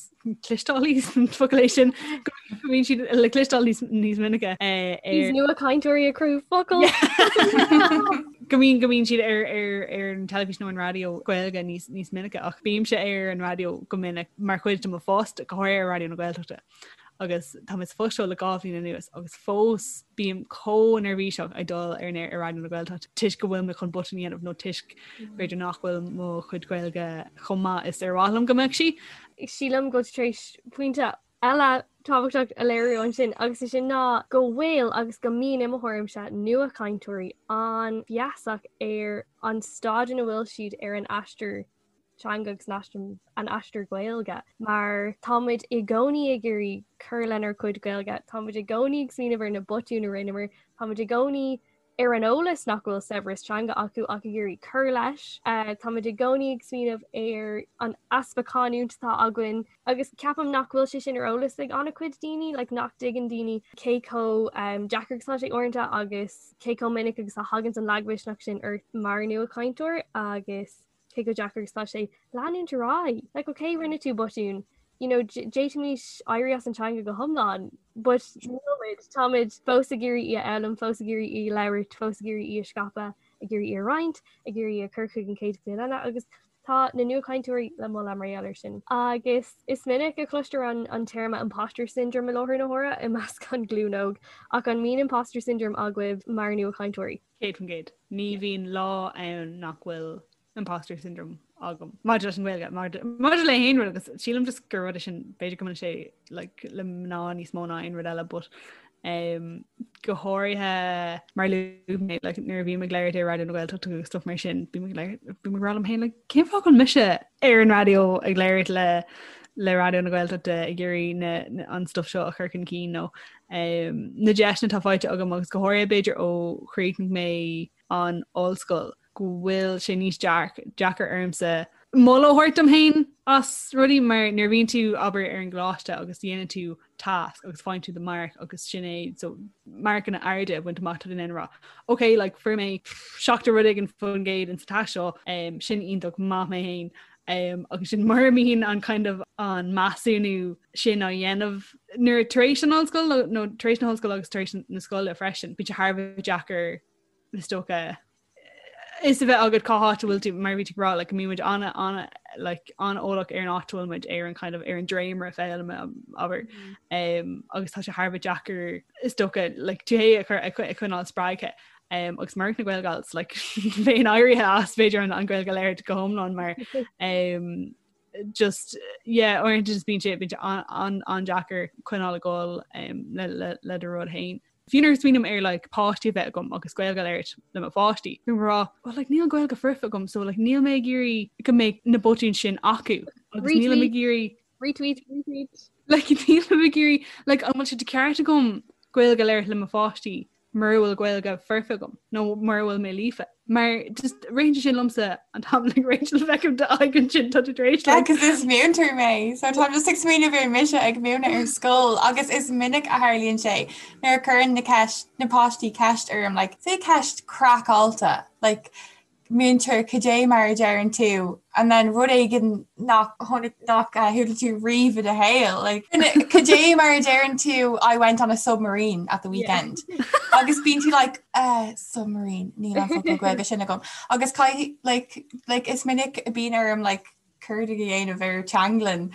Speaker 8: cloisteálaí focal é sin go mbíonn siad le cloisteáil níos níos minice eh,
Speaker 7: ar Níos nuachainteoirí ag cruthú focal.
Speaker 8: go mbíonn go mbíonn siad ar ar ar an teilifís nó an raidió Gaeilge níos níos minice ach bímse ar an raidió go minic mar chuid de mo phost go háirithe ar Raidió na Gaeltachta. agus tá mé sa phost seo le 2 bhliain anuas agus fós bím chomh neirbhíseach ag dul ar an aer ar Raidió na Gaeltachta toisc go bhfuil mé chun botún a dhéanamh nó toisc b'fhéidir nach bhfuil mo chuid Gaeilge chomh maith is ar mhaith liom go mbeadh sí.
Speaker 7: Sílim go bhfuil tú tar éis pointe. eile tábhachtach a léiriú ansin agus é sin ná go bhfuil agus go mbíonn i mo thuairimse nuachainteoirí an-fheasach ar an staid ina bhfuil siad ar an aistear teanga agus an aistear Gaeilge mar táimid i gcónaí ag iarraidh cur lenár gcuid Gaeilge, táimid i gcónaí ag smaoineamh ar na botúin a rinneamar, táimid i gcónaí ar an eolas nach bhfuil saibhreas teanga acu ach ag iarraidh cur leis. Táimid i gcónaí ag smaoineamh ar an easpa canúint atá againn agus ceapaim nach bhfuil sé sin ar eolas ag an-chuid daoine, like nach dtuigeann daoine cé chomh deacair agus atá sé uaireanta agus cé chomh minic agus a thagann an lagmhisneach sin ort mar nuachainteoir agus cé chomh deacair agus atá sé leanúint ar aghaidh. Like ok rinne tú botún, you know d'fhéadfaimis éirí as an teanga go hiomlán, but nílimid, táimid fós ag iarraidh í a fhoghlaim, fós ag iarraidh í a labhairt, fós ag iarraidh í a scaipeadh, ag iarraidh í a roinnt, ag iarraidh í a chur chuig an chéad ghlúin eile agus tá na nuachainteoirí le moladh mar gheall air sin. Agus is minic a chloistear an, an téarma imposter syndrome i láthair na huaire i measc an ghlúin óg, ach an mbíonn imposter syndrome agaibh mar nuachainteoirí?
Speaker 8: 100%. Ní bhíonn lá ann nach bhfuil imposter syndrome agam. Maidir leis an Ghaeilge, maidir le haon rud agus sílim just gur rud é sin b'fhéidir go mbaineann sé like, le mná níos mó ná aon rud eile, but um, go háirithe mar luaigh mé like, nuair a bhím ag labhairt ar Raidió na Gaeltachta agus stuff mar sin bím ag labhairt bím ag rá liom féin like, cén fáth go bhfuil mise ar an raidió ag labhairt le le Raidió na Gaeltachta ag iarraidh an stuff seo a chur chun cinn nó um, na deiseanna atá faighte agam agus go háirithe b'fhéidir ó chríochnaigh mé an ollscoil go bhfuil sé níos deacair ormsa moladh a thabhairt dom féin as rudaí mar nuair a bhíonn tú abair ar an gcoláiste agus dhéanann tú tasc agus faigheann tú do marc agus sin é so marcanna arda a bhaint amach tá tú in ann a rá ok like fuair mé 70 rud éigin faoin gcéad in sa tasc seo um, sin iontach maith mé féin um, agus sin mura mbíonn an kind of an measúnú sin á dhéanamh nuair tar éis an ollscoil nó tar éis na hollscoile agus tar éis na scoile freisin bíonn sé thar a bheith deacair is dócha is a bheith agat cá háit a bhfuil tú mar bhí tú ag rá like, go mbíonn muid an an like, an-eolach ar an áit a bhfuil muid ar an kind of ar an dréimire foghlama abair um, agus tá sé thar a bheith deacair is dócha like, tú féin a chur a choinneáil spreagtha um, agus murach na Gaelgals like, bheinn éirithe as b'fhéidir an, an Ghaeilge a labhairt go hiomlán mar um, just yeah uaireanta just bíonn sé bíonn sé an an an-deacair coinneáil ag dul um, le, le, le do rud féin. Fiú nuair a smaoiním ar like, páistí a bheith agam agus Gaeilge a labhairt le mo pháistí, bím ag rá, well, like, níl Gaeilge foirfe agam, so like, níl mé ag iarraidh go mbeidh na botúin sin acu. Agus nílim ag iarraidh
Speaker 7: Retweet, retweet.
Speaker 8: Like, nílim ag iarraidh like, an bhfuil sé de ceart agam Gaeilge a labhairt le mo pháistí mura bhfuil Gaeilge foirfe agam nó mura bhfuil mé líofa. Mar just ritheann sé sin liomsa an t-am like Rachel feicim d'aghaidh ansin tá tú tar éis
Speaker 9: like Because is múinteoir mé, so táim just ag smaoineamh ar mise ag múineadh ar scoil agus is minic a tharlaíonn sé nuair a chuireann na ceist na páistí ceist orm like say ceist craiceáilte like múinteoir cad é mar a deireann tú and then rud éigin nach tháinig nach chuala tú riamh i do shaol like cad é mar a deireann tú I went on a submarine at the weekend agus bíonn tú like uh, submarine níl an focal Gaeilge sin agam agus caithfidh like like is minic a bíonn orm like cuardach a dhéanamh ar teanglann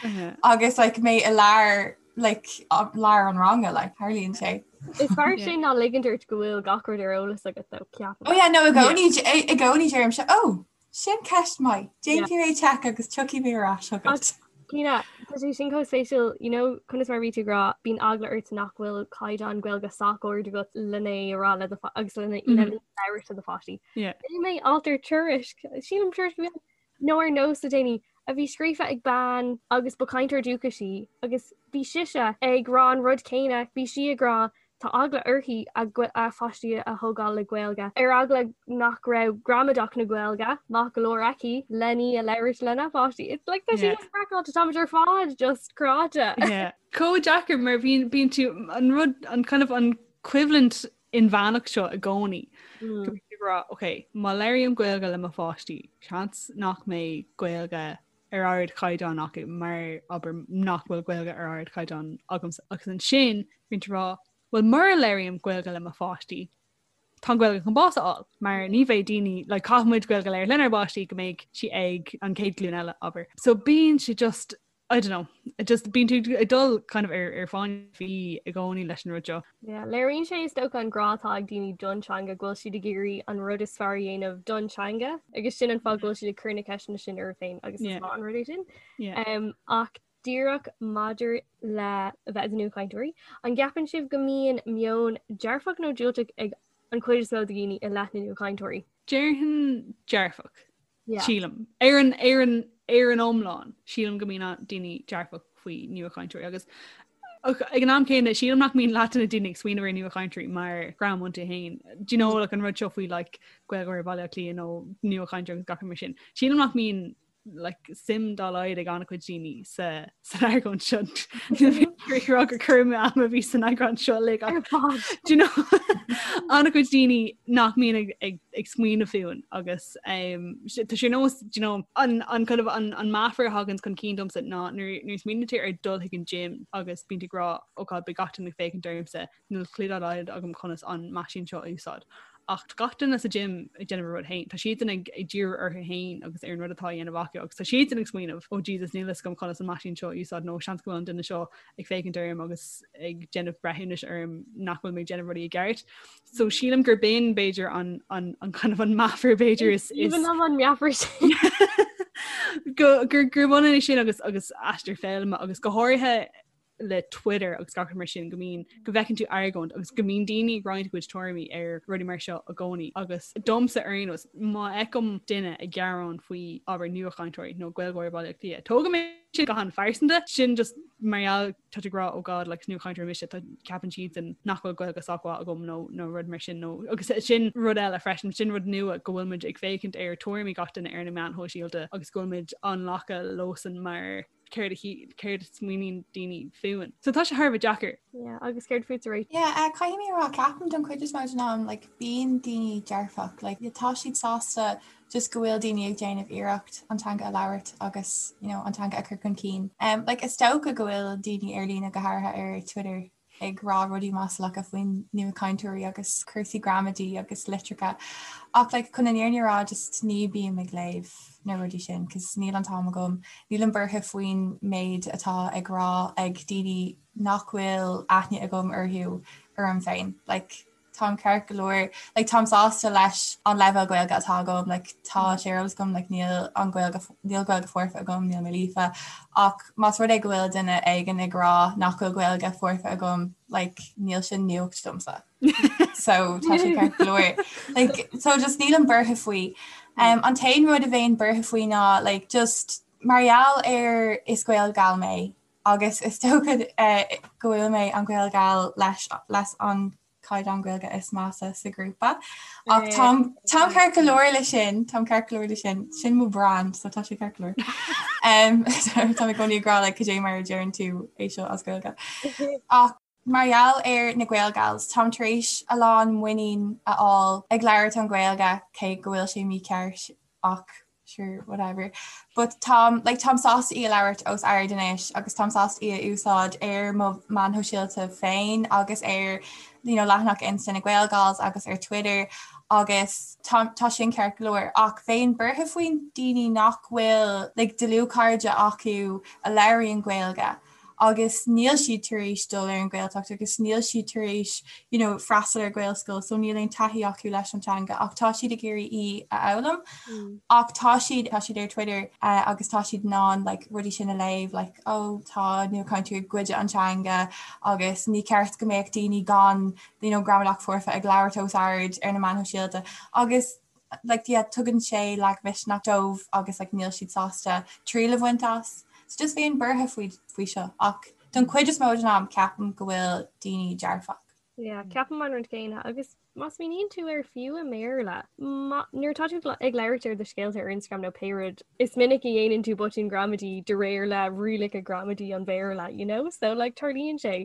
Speaker 9: agus like mé i lár like lár an ranga like tarlaíonn sé.
Speaker 7: Is fearr sin ná ligint ort go bhfuil gach rud ar eolas agat though, ceapaim.
Speaker 9: Oh yeah, no, i gcónaí i gcónaí deirimse oh sin ceist maith, déanfaidh mé check agus tiocfaidh mé ar ais
Speaker 7: chugat. Cíona, tá sé sin chomh spéisiúil, you know, conas mar bhí tú ag rá, bíonn eagla ort nach bhfuil caighdeán Gaeilge sách ard agat lena a rá le do agus lena labhairt le do pháistí. Léigh mé alt ar Tuairisc, sílim Tuairisc a bhí ann, nó ar Nós le déanaí, a bhí scríofa ag bean agus ba chainteoir dúchais í agus bhí sise ag rá an rud céanna, bhí sí ag rá tá eagla uirthi a pháistí a thógáil le Gaeilge, ar eagla nach raibh gramadach na Gaeilge maith go leor aici len í a labhairt lena pháistí. It's like tá sé craiceáilte, táimid ar fad just cráite.
Speaker 8: Yeah. Chomh deacair mar bíonn bíonn tú an rud an kind of an coimhlint inmheánach seo i gcónaí. Go mbíonn tú ag rá, ok, má labhraím Gaeilge le mo pháistí, seans nach mbeidh Gaeilge ar ardchaighdeán acu mar abair nach bhfuil Gaeilge ar ardchaighdeán agamsa. Agus ansin bíonn tú ag rá, well mura labhraím Gaeilge le mo pháistí, tá an Ghaeilge chun bás a fháil, mar ní bheidh daoine, like, caithfidh muid Gaeilge a labhairt lenár bpáistí go mbeidh sí ag an chéad ghlúin eile, abair. So bíonn sé just I don't know, just bíonn tú ag dul kind of ar ar fáinne fí i gcónaí leis an rud seo.
Speaker 7: Yeah, léiríonn sé is dócha an grá atá ag daoine don teanga go bhfuil siad ag iarraidh an rud is fearr a dhéanamh don teanga agus sin an fáth go bhfuil siad ag cur na ceisteanna sin orthu féin agus is maith an rud é sin. Yeah. Um, ach Díreach maidir le a bheith i do nuachainteoirí, an gceapann sibh go mbíonn meon dearfach nó diúltach ag an chuid is mó de dhaoine i leith na nuachainteoirí?
Speaker 8: Déarfainn dearfach, sílim. Ar an, ar an, ar an iomlán, sílim go mbíonn daoine dearfach faoi nuachainteoirí agus ag an am céanna sílim nach mbíonn leath de na daoine ag smaoineamh ar nuachainteoirí mar dhream iontu féin. Do you know like an rud seo faoi like Gaeilgeoir Bhaile Átha Cliath nó nuachainteoir agus gach rud mar sin. Sílim nach mbíonn like, suim dá laghad ag an-chuid daoine sa san argóint seo. Níl rá gur cur amú ama a bhí san eagrán seo le Do you know an-chuid daoine nach mbíonn ag, ag, ag smaoineamh fúinn agus um, tá sé nós do you know, an, an, kind of, an, an meafar a thagann chun cinn domsa ná nuair nuair smaoiníonn tú ar dul chuig an gym agus bíonn tú ag rá oh God beidh gach duine ag féachaint ormsa níl clue dá laghad agam conas an meaisín seo a úsáid. Ach tá gach duine sa gym ag déanamh a rud féin. Tá siadsan ag ag díriú orthu féin agus ar an rud atá á dhéanamh acu agus tá siadsan ag smaoineamh oh Jesus níl fhios agam conas an meaisín seo a úsáid nó seans go bhfuil an duine seo ag féachaint orm agus ag déanamh breithiúnais orm nach bhfuil mé ag déanamh rudaí i gceart. So sílim gur b'in b'fhéidir an an an kind of an meafar b'fhéidir is is
Speaker 7: Even an meafar sin.
Speaker 8: go gur gur bhaineann é sin agus agus aistear foghlama agus go háirithe le Twitter agus gach rud mar sin go mbíonn go bhfeiceann tú argóint agus go mbíonn daoine ag roinnt a gcuid tuairimí ar rudaí mar seo i gcónaí agus domsa ar aon nós má fheicim duine ag gearán faoi abair nuachainteoirí nó Gaeilgeoir Bhaile Átha Cliath tógaim é sin go han-phearsanta sin just mar gheall tá tú ag rá oh God like nuachainteoir mise tá ceapann siadsan nach bhfuil Gaeilge sách mhaith agam nó nó rud mar sin nó agus sin rud eile freisin sin rud nua go bhfuil muid ag féachaint ar tuairimí gach duine ar na meáin shóisialta agus go bhfuil muid á nglacadh leosan mar céard a céard a smaoiníonn daoine fúinn. So tá sé thar a bheith deacair.
Speaker 7: Yeah, agus céard fútsa
Speaker 9: Rach? Yeah, uh, caithfidh mé a rá ceapaim don chuid is mó den am like, bíonn daoine dearfach, like, tá siad sásta just go bhfuil daoine ag déanamh iarracht an teanga a labhairt agus you know, an teanga a chur chun cinn. Um, like, is dócha go bhfuil daoine ar líne go háirithe ar Twitter ag rá rudaí maslacha faoin nuachainteoirí agus cúrsaí gramadaí agus litreacha ach like chun an fhírinne a rá just ní bím ag léamh na rudaí sin cos níl an t-am agam, nílim buartha faoin méid atá ag rá ag daoine nach bhfuil aithne agam orthu orm féin like táim ceart go leor like táim sásta leis an leibhéal Gaeilge atá agam like tá sé ar eolas agam like níl an Gaeilge níl Gaeilge foirfe agam níl mé líofa ach más rud é go bhfuil duine éigin ag rá nach bhfuil Gaeilge foirfe agam like níl sin nuacht domsa so tá sé ceart go leor like so just nílim buartha faoi um, an t-aon rud a bheinn buartha faoi ná like just mar gheall ar is Gaelgal mé agus is dócha go bhfuil mé an Gaelgal leis leis an caighdeán Gaeilge is measa sa ghrúpa. Ach táim táim ceart go leor le sin, táim ceart go leor le sin, sin mo brand, so tá sé ceart go leor. Um, tá mé i gcónaí ag rá like, cad é mar a deireann tú é seo as Gaeilge. Ach mar gheall ar na Gaelgals, táim tar éis a lán muinín a fháil ag labhairt an Ghaeilge cé go bhfuil sé mícheart ach sure whatever but táim like táim sásta í a labhairt os ard anois agus táim sásta í a úsáid ar mo meáin shóisialta féin agus ar you know leathanach Insta na Gaelgals agus ar Twitter agus tá tá sin ceart go leor ach bheinn buartha faoin daoine nach bhfuil like dlúthchairde acu a labhraíonn Gaeilge agus níl siad tar éis dul ar an Ghaeltacht agus níl siad tar éis you know, freastal ar Ghaelscoil so níl aon taithí acu leis an teanga ach tá siad ag iarraidh í a fhoghlaim mm. ach tá siad tá siad ar Twitter uh, agus tá siad in ann like, rudaí sin a léamh like, oh, tá nuachainteoirí ag goid an teanga agus ní ceart go mbeadh daoine gan you know, gramadach foirfe ag labhairt os ard ar na meáin shóisialta agus like yeah tugann sé lagmhisneach dóibh agus like níl siad sásta triail a bhaint as. So just bheinn buartha faoi faoi seo ach don chuid is mó den am ceapaim go bhfuil daoine dearfach.
Speaker 7: Yeah, ceapaim an rud céanna agus má smaoiníonn tú air fiú i mBéarla, nuair atá tú ag labhairt ar do scéalta ar Instagram nó pé rud, is minic a dhéanann tú botún gramadaí de réir le rialacha gramadaí an Bhéarla, you know? So like tarlaíonn sé.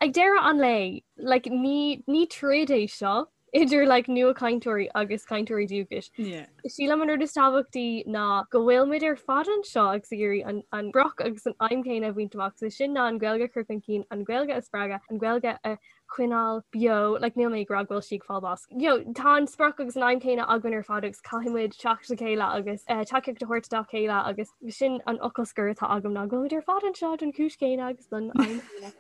Speaker 7: Ag deireadh an lae, like, ní, ní troid é seo idir like, nuachainteoirí agus cainteoirí dúchais.
Speaker 8: Yeah.
Speaker 7: Sílim an rud is tábhachtaí ná go bhfuil muid ar fad anseo agus ag iarraidh an, an sprioc agus an aidhm chéanna a bhaint amach, so sin ná an Ghaeilge a chur chun cinn, an Ghaeilge a spreagadh, an Ghaeilge a choinneáil beo, like, níl mé ag rá go bhfuil sí ag fáil bás. You know, tá an sprioc agus an aidhm chéanna againn ar fad agus caithfidh muid teacht le chéile agus uh, tacaíocht a thabhairt dá chéile agus sin an fhocal scoir atá agam ná go bhfuil muid ar fad anseo don chúis chéanna agus don aidhm chéanna.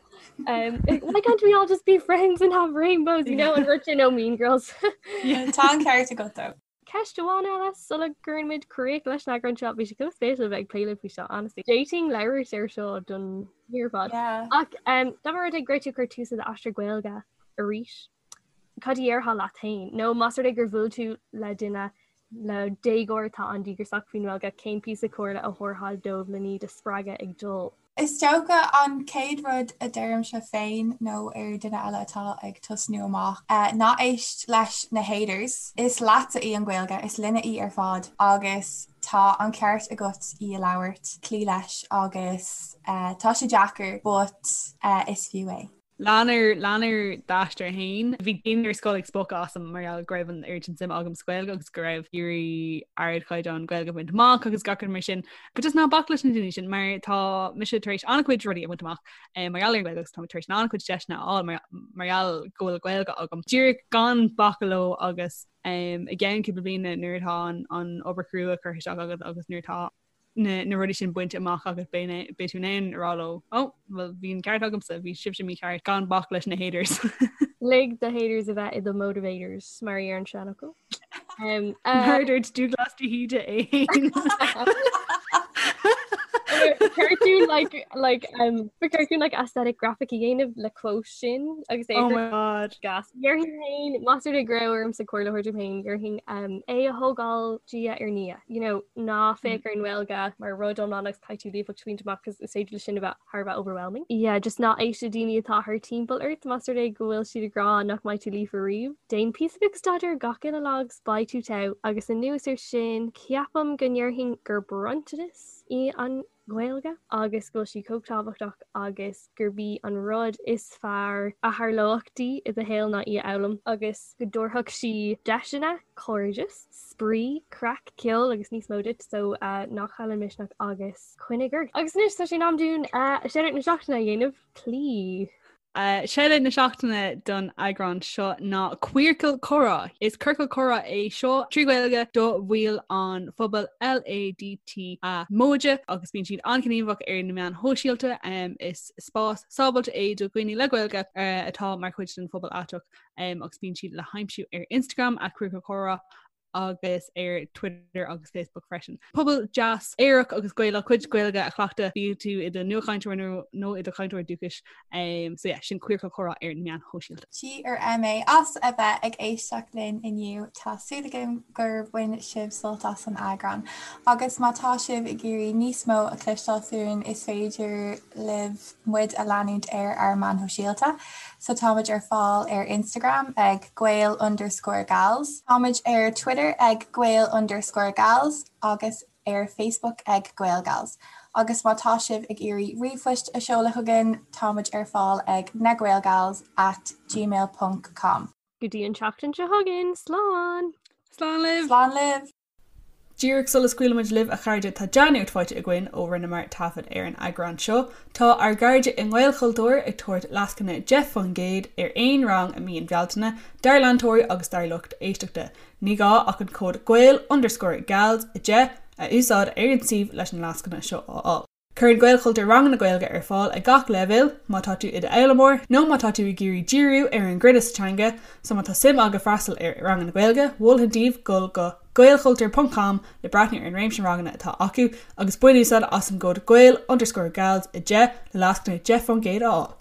Speaker 7: Um, why can't we all just be friends and have rainbows, you know, an rud sin ó Mean Girls?
Speaker 9: Tá an ceart agat though.
Speaker 7: Ceist amháin eile sula gcuireann muid críoch leis an eagrán seo, bhí sé chomh spéisiúil a bheith ag plé libh faoi seo, honestly. D'fhéadfainn labhairt ar seo don oíche ar fad. Ach dá mba rud é go raibh tú ag cur tús le d'aistear Gaeilge arís, cad a dhéarfá leat féin? Nó más rud é gur bhuail tú le duine le déagóir atá an-díograiseach faoin nGaeilge, cén píosa comhairle a thabharfá dóibh le iad a spreagadh ag dul?
Speaker 9: Is dócha an chéad rud a deirimse féin nó ar duine eile atá ag tosnú amach, ná éist leis na haters. Is leatsa í an Ghaeilge, is linne í ar fad agus tá an ceart agat í a labhairt, cloí leis agus tá sé deacair but is fiú é.
Speaker 8: Lean ar lean ar d'aistear féin. Bhí daoine ar scoil ag spochadh asam mar gheall go raibh an oiread sin suime agam sa Ghaeilge agus go raibh iarraidh ardchaighdeán Gaeilge a bhaint amach agus gach rud mar sin. But just ná bac leis na daoine sin mar tá mise tar éis an-chuid rudaí a bhaint amach eh, mar gheall ar an Ghaeilge agus tá mé tar éis an-chuid deiseanna a fháil mar mar gheall go bhfuil Gaeilge agam. Díreach gan bacadh leo agus um, i gceann cúpla bliana nuair atá an, an obair chrua curtha isteach agat agus nuair atá na rudaí sin bainte amach agat beidh tú in ann a rá leo, oh, well bhí an ceart agamsa, bhí sibhse mícheart gan bac leis na haters.
Speaker 7: Lig do haters a bheith i do motivators mar a deir an seanfhocal.
Speaker 8: Um, uh, Mar dúirt Dúglas de hÍde é féin.
Speaker 7: Cartoon like like um cartoon like aesthetic graphic a dhéanamh le quote sin agus é
Speaker 8: Oh my god.
Speaker 7: gas. Déarfainn féin más rud é go raibh ormsa comhairle a thabhairt dom féin déarfainn um, é a thógáil diaidh ar ndiaidh. You know, ná féach ar an nGaeilge mar rud iomlán agus caithfidh tú líofacht a bhaint amach cos is féidir leis sin a bheith thar a bheith overwhelming. Yeah, just ná éist le daoine atá thar timpeall ort más rud é go bhfuil siad ag rá nach mbeidh tú líofa riamh. Déan píosa beag staidéir gach uile lá agus beidh tú togha agus anuas air sin ceapaim go ndéarfainn gur bronntanas í an Ghaeilge agus go bhfuil sí chomh tábhachtach agus gurb í an rud is fearr a tharlódh di i do shaol ná í a fhoghlaim agus go dtabharfadh sí deiseanna, cairdeas, spraoi, craic, ceol agus níos mó duit so ná caill an misneach agus coinnigh ort. Agus anois tá sé in am dúinn shoutout na seachtaine a dhéanamh, please.
Speaker 8: Shoutout na seachtaine don eagrán seo ná Queercal Comhrá. Is ciorcal comhrá é seo trí Ghaeilge do bhaill an phobail LADTA móide agus bíonn siad an-ghníomhach ar na meáin shóisialta. Is spás sábháilte é do dhaoine le Gaeilge atá mar chuid den phobal aiteach agus bíonn siad le haimsiú ar Instagram at Queercal Comhrá agus ar Twitter agus Facebook freisin. Pobal deas aerach agus Gaelach cuid Gaeilge a chleachtadh bíodh tú i do nuachainteoir nó i do chainteoir dúchais. Um, so yeah, sin Queercal Comhrá ar na meáin shóisialta.
Speaker 9: G ar MA as a bheith ag éisteacht linn inniu tá súil agam gur bhain sibh sult as an eagrán. Agus má tá sibh ag iarraidh níos mó a chloisteáil fúinn is féidir libh muid a leanúint ar ár meáin shóisialta. So táimid ar fáil ar Instagram ag gael underscore gals. Táimid ar Twitter ag gael underscore gals agus ar Facebook ag GaelGals. Agus má tá sibh ag iarraidh ríomhphoist a sheoladh chugainn, táimid ar fáil ag nagaelgals at gmail ponc com.
Speaker 7: Go dtí an tseachtain seo chugainn, slán!
Speaker 8: Slán libh!
Speaker 9: Slán libh!
Speaker 8: Díreach sula scaoilfimid libh a chairde tá dea-nuacht faighte againn ó rinneamar taifead ar an eagrán seo. Tá ár gcairde i nGaelchultúr ag tabhairt lascaine 10% ar aon rang i mí an Bhealtaine dár leantóirí agus dár lucht éisteachta. Ní gá ach an cód gael underscore gals 10 a úsáid ar an suíomh leis an lascaine seo a fháil. Cuireann Gaelchultúr ranganna Gaeilge ar fáil ag gach leibhéal, má tá tú i d'fhoghlaimeoir nó má tá tú ag iarraidh díriú ar an gcruinneas sa teanga, so má tá suim agat freastal ar ranganna Gaeilge, mholfainn daoibh dul go gaelchultúr ponc com le breathnú ar an réimse ranganna atá acu agus bain úsáid as an gcód gael underscore gals 10 le lascaine 10% a fháil.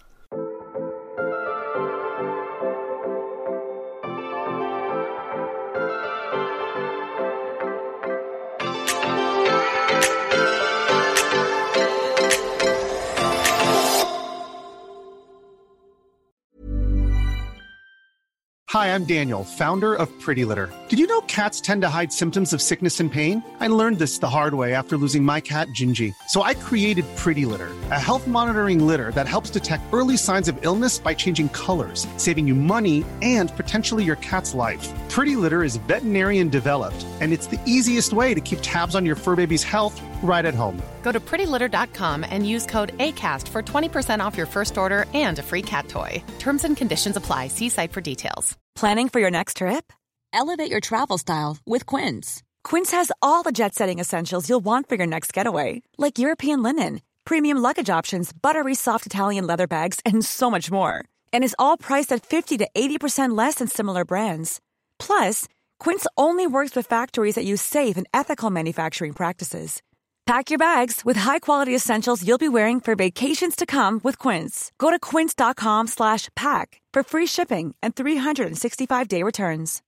Speaker 3: Hi, I'm Daniel, founder of Pretty Litter. Did you know cats tend to hide symptoms of sickness and pain? I learned this the hard way after losing my cat, Gingy. So I created Pretty Litter, a health monitoring litter that helps detect early signs of illness by changing colors, saving you money and potentially your cat's life. Pretty Litter is veterinarian developed, and it's the easiest way to keep tabs on your fur baby's health right at home.
Speaker 5: Go to prettylitter.com and use code ACAST for 20% off your first order and a free cat toy. Terms and conditions apply. See site for details.
Speaker 10: Planning for your next trip? Elevate your travel style with Quince. Quince has all the jet setting essentials you'll want for your next getaway, like European linen, premium luggage options, buttery soft Italian leather bags, and so much more. And is all priced at 50 to 80% less than similar brands. Plus, Quince only works with factories that use safe and ethical manufacturing practices. Pack your bags with high-quality essentials you'll be wearing for vacations to come with Quince. Go to quince.com/pack for free shipping and 365-day returns.